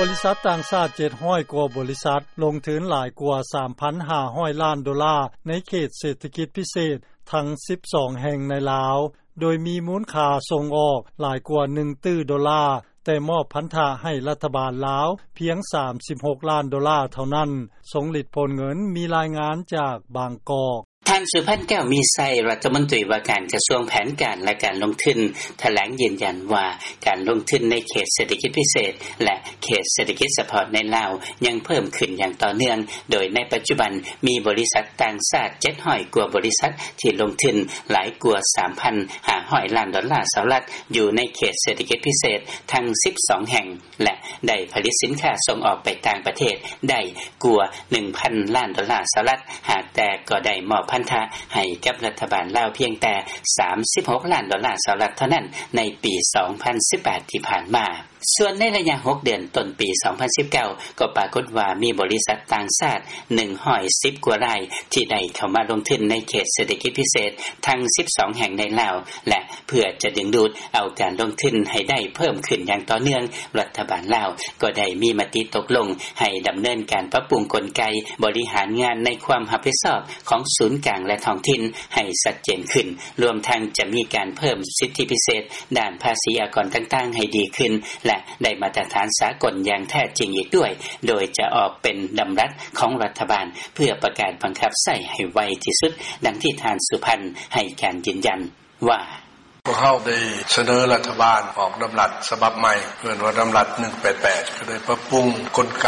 ບໍລິສັດຕ່າງຊາດ ເຈັດຮ້ອຍກວ່າບໍລິສັດ ລົງທຶນຫຼາຍກວ່າ ສາມພັນຫ້າຮ້ອຍລ້ານໂດລາ ໃນເຂດເສດຖະກິດພິເສດ ທັງສິບສອງແຫ່ງໃນລາວ ໂດຍມີມູນຄ່າສົ່ງອອກຫຼາຍກວ່າ ໜຶ່ງຕື້ໂດລາ, ແຕ່ມອບພັນທະໃຫ້ລັດຖະບານລາວພຽງ ສາມສິບຫົກລ້ານໂດລາເທົ່ານັ້ນ. ຊົງລິດ ໂພນເງິນ ມີລາຍງານຈາກບາງກອກ. ທ່ານ ສຸພັນ ແກ້ວມີໄຊ, ລັດຖະມົນຕີວ່າການກະຊວງແຜນການ ແລະ ການລົງທຶນ ຖະແຫຼງຢືນຢັນວ່າ ການລົງທຶນໃນເຂດເສດຖະກິດພິເສດ ແລະ ເຂດເສດຖະກິດສະເພາະໃນລາວ ຍັງເພີ່ມຂຶ້ນຢ່າງຕໍ່ເນື່ອງ, ໂດຍໃນປັດຈຸບັນມີບໍລິສັດຕ່າງຊາດ ເຈັດຮ້ອຍກວ່າບໍລິສັດ ທີ່ລົງທຶນຫຼາຍກວ່າ ສາມພັນຫ້າຮ້ອຍລ້ານໂດລາສະຫະລັດ ຢູ່ໃນເຂດເສດຖະກິດພິເສດທັງສິບສອງແຫ່ງ ແລະ ໄດ້ຜະລິດສິນຄ້າສົ່ງອອກໄປຕ່າງປະເທດໄດ້ກວ່າ ໜຶ່ງພັນລ້ານໂດລາສະຫະລັດ, ຫາກແຕ່ກໍໄດ້ມອບພັນທະໃຫ້ກັບລັດຖະບານລາວພຽງແຕ່ ສາມສິບຫົກລ້ານໂດລາສະຫະລັດເທົ່ານັ້ນ ໃນປີສອງພັນສິບແປດທີ່ຜ່ານມາ. ສ່ວນໃນໄລຍະຫົກເດືອນຕົ້ນປີສອງພັນສິບເກົ້າ ກໍປາກົດວ່າມີບໍລິສັດຕ່າງຊາດ ໜຶ່ງຮ້ອຍສິບກວ່າລາຍ ທີ່ໄດ້ເຂົ້າມາລົງທຶນໃນເຂດເສດຖະກິດພິເສດທັງສິບສອງແຫ່ງໃນລາວ ແລະ ເພື່ອຈະດຶງດູດເອົາການລົງທຶນໃຫ້ໄດ້ເພີ່ມຂຶ້ນຢ່າງຕໍ່ເນື່ອງ, ລັດຖະບານລາວກໍໄດ້ມີມະຕິຕົກລົງໃຫ້ດຳເນີນການປັບປຸງກົນໄກບໍລິຫານງານໃນຄວາມຮັບຜິດຊອບຂອງສູນກາງ ແລະ ທ້ອງຖິ່ນໃຫ້ຊັດເຈນຂຶ້ນ, ລວມທັງຈະມີການເພີ່ມສິດທິພິເສດດ້ານພາສີອາກອນຕ່າງໆໃຫ້ດີຂຶ້ນ ແລະ ໄດ້ມາດຕະຖານສາກົນຢ່າງແທ້ຈິງອີກດ້ວຍ, ໂດຍຈະອອກເປັນດຳລັດຂອງລັດຖະບານ ເພື່ອປະກາດບັງຄັບໃຊ້ໃຫ້ໄວທີ່ສຸດ, ດັ່ງທີ່ທ່ານ ສຸພັນ ໃຫ້ການຢືນຢັນວ່າ: ພວກເຮົາໄດ້ສະເໜີລັດຖະບານອອກດຳລັດສະບັບໃໝ່ ເອີ້ນວ່າດຳລັດ ໜຶ່ງແປດແປດ ກໍໄດ້ປັບປຸງກົນໄກ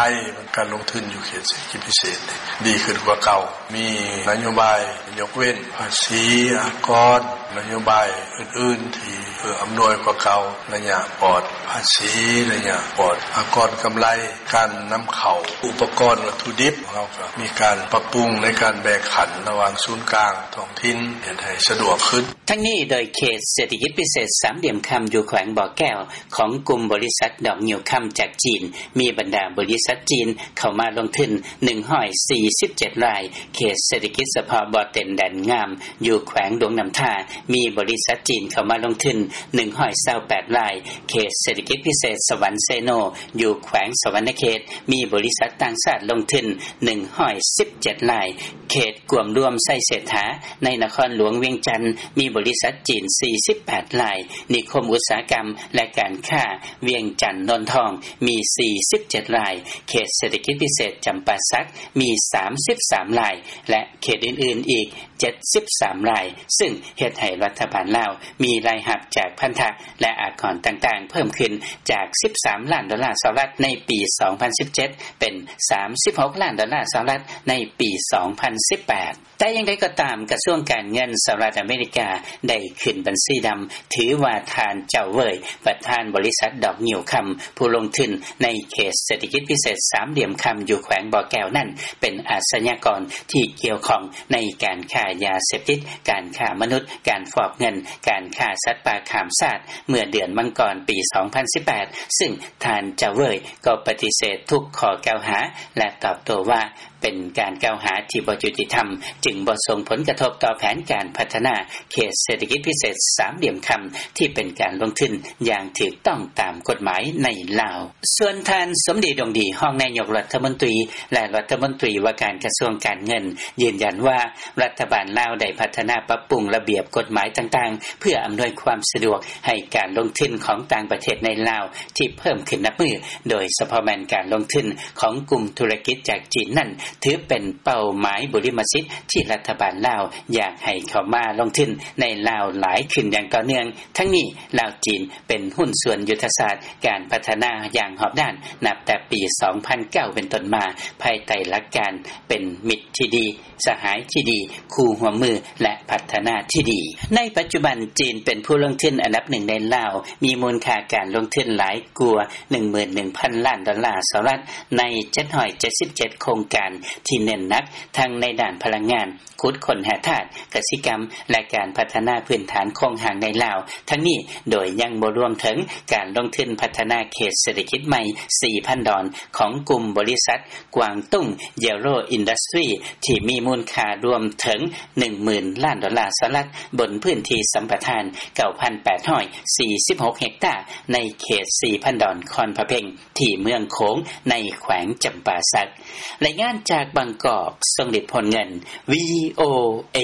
ການລົງທຶນຢູ່ເຂດເສດຖະກິດພິເສດ ດີຂຶ້ນກວ່າເກົ່າ. ມີນະໂຍບາຍຍົກເວັ້ນພາສີອາກອນ, ນະໂຍບາຍອື່ນໆທີ່ເອື້ອອຳນວຍກວ່າເກົ່າ, ໄລຍະປອດພາສີ, ໄລຍະປອດອາກອນກຳໄລ, ການນຳເຂົ້າອຸປະກອນວັດຖຸດິບ, ເຮົາກໍມີການປັບປຸງໃນການແບ່ງຂັນລະຫວ່າງສູນກາງທ້ອງຖິ່ນ ເຮັດໃຫ້ສະດວກຂຶ້ນ. ທັງນີ້ ໂດຍເຂດເສດຖະກິດພິເສດສາມຫຼ່ຽມຄຳ ຢູ່ແຂວງບໍ່ແກ້ວ ຂອງກຸ່ມບໍລິສັດດອກງິ້ວຄຳຈາກຈີນ ມີບັນດາບໍລິສັດຈີນເຂົ້າມາລົງທຶນ ໜຶ່ງຮ້ອຍສີ່ສິບເຈັດລາຍ, ເຂດເສດຖະກິດສະເພາະບໍ່ເຕັນແດນງາມ ຢູ່ແຂວງຫຼວງນ້ຳທາ ມີບໍລິສັດຈີນເຂົ້າມາລົງທຶນ ໜຶ່ງຮ້ອຍຊາວແປດລາຍ, ເຂດເສດຖະກິດພິເສດສະຫວັນເຊໂນ ຢູ່ແຂວງສະຫວັນນະເຂດ ມີບໍລິສັດຕ່າງຊາດລົງທຶນ ໜຶ່ງຮ້ອຍສິບເຈັດລາຍ, ເຂດກວມລວມໄຊເສດຖາ ໃນນະຄອນຫຼວງວຽງຈັນ ມີບໍລິສັດຈີນ ສີ່ສິບແປດລາຍ, ນິຄົມອຸດສາຫະກຳ ແລະ ການຄ້າວຽງຈັນໂນນທອງ ມີ ສີ່ສິບເຈັດລາຍ, ເຂດເສດຖະກິດພິເສດຈຳປາສັກ ມີ ສາມສິບສາມລາຍ ແລະ ເຂດອື່ນໆອີກ ເຈັດສິບສາມລາຍ, ຊຶ່ງເຮັດໃຫ້ລັດຖະບານລາວມີລາຍຮັບຈາກພັນທະ ແລະ ອາກອນຕ່າງໆເພີ່ມຂຶ້ນຈາກ ສິບສາມລ້ານໂດລາສະຫະລັດ ໃນປີສອງພັນສິບເຈັດ ເປັນ ສາມສິບຫົກລ້ານໂດລາສະຫະລັດ ໃນປີສອງພັນສິບແປດ. ແຕ່ຢ່າງໃດກໍຕາມ, ກະຊວງການເງິນສະຫະລັດອາເມລິກາ ໄດ້ຂຶ້ນບັນຊີດຳ ຖືວ່າທ່ານ ເຈົ້າເຫວີຍ ປະທານບໍລິສັດດອກງິ້ວຄຳ ຜູ້ລົງທຶນໃນເຂດເສດຖະກິດພິເສດສາມຫຼ່ຽມຄຳ ຢູ່ແຂວງບໍ່ແກ້ວນັ້ນ ເປັນອາຊະຍາກອນທີ່ກ່ຽວຂ້ອງໃນການຄ້າຢາເສບຕິດ, ການຄ້າມະນຸດ, ການຟອກເງິນ, ການຄ້າສັດປ່າຂ້າມຊາດ ເມື່ອເດືອນມັງກອນປີສອງພັນສິບແປດ, ຊຶ່ງທ່ານ ເຈົ້າເຫວີຍ ກໍປະຕິເສດທຸກຂໍ້ກ່າວຫາ ແລະ ຕອບໂຕ້ວ່າ ເປັນການກ່າວຫາທີ່ບໍ່ຍຸຕິທຳ, ຈຶ່ງບໍ່ສົ່ງຜົນກະທົບຕໍ່ແຜນການພັດທະນາເຂດເສດຖະກິດພິເສດສາມຫຼ່ຽມຄຳ ທີ່ເປັນການລົງທຶນຢ່າງຖືກຕ້ອງຕາມກົດໝາຍໃນລາວ. ສ່ວນທ່ານ ສົມດີ ດົງດີ ຮອງນາຍົກລັດຖະມົນຕີ ແລະ ລັດຖະມົນຕີວ່າການກະຊວງການເງິນ ຢືນຢັນວ່າ ລັດຖະບານລາວໄດ້ພັດທະນາປັບປຸງລະບຽບກົດໝາຍຕ່າງໆ ເພື່ອອຳນວຍຄວາມສະດວກໃຫ້ການລົງທຶນຂອງຕ່າງປະເທດໃນລາວ ທີ່ເພີ່ມຂຶ້ນນັບມື້, ໂດຍສະເພາະແມ່ນການລົງທຶນຂອງກຸ່ມທຸລະກິດຈາກຈີນນັ້ນ ຖືເປັນເປົ້າໝາຍບຸລິມະສິດທີ່ລັດຖະບານລາວຢາກໃຫ້ເຂົ້າມາລົງທຶນໃນລາວຫຼາຍຂຶ້ນຢ່າງຕໍ່ເນື່ອງ. ທັງນີ້ ລາວ-ຈີນ ເປັນຫຸ້ນສ່ວນຍຸດທະສາດການພັດທະນາຢ່າງຮອບດ້ານ ນັບແຕ່ປີສອງພັນເກົ້າເປັນຕົ້ນມາ, ພາຍໃຕ້ຫຼັກການເປັນມິດທີ່ດີ, ສະຫາຍທີ່ດີ, ຄູ່ຮ່ວມມື ແລະ ພັດທະນາທີ່ດີ. ໃນປັດຈຸບັນ ຈີນເປັນຜູ້ລົງທຶນອັນດັບໜຶ່ງໃນລາວ, ມີມູນຄ່າການລົງທຶນຫຼາຍກວ່າ ໜຶ່ງໝື່ນໜຶ່ງພັນລ້ານໂດລາສະຫະລັດ ໃນ ເຈັດຮ້ອຍເຈັດສິບເຈັດໂຄງການ ທີ່ເນັ້ນໜັກທັງໃນດ້ານພະລັງງານ, ຂຸດຄົ້ນຫາທາດ, ກະສິກຳ ແລະ ການພັດທະນາພື້ນຖານໂຄງຮ່າງໃນລາວ, ທັງນີ້ໂດຍຍັງບໍ່ລວມເຖິງການລົງທຶນພັດທະນາເຂດເສດຖະກິດໃໝ່ສີ່ພັນດອນ ຂອງກຸ່ມບໍລິສັດ ກວາງຕຸ້ງ Yellow Industry ທີ່ມີມູນຄ່າລວມເຖິງໜຶ່ງໝື່ນລ້ານດອນລາສະຫະລັດ ບົນພື້ນທີ່ສຳປະທານເກົ້າພັນແປດຮ້ອຍສີ່ສິບຫົກເຮັກຕາ ໃນເຂດສີ່ພັນດອນຄອນພະເພັງ ທີ່ເມືອງໂຂງ ໃນແຂວງຈຳປາສັກ. ລາຍງານຈາກບາງກອກ ຊົງລິດ ໂພນເງິນ VOA.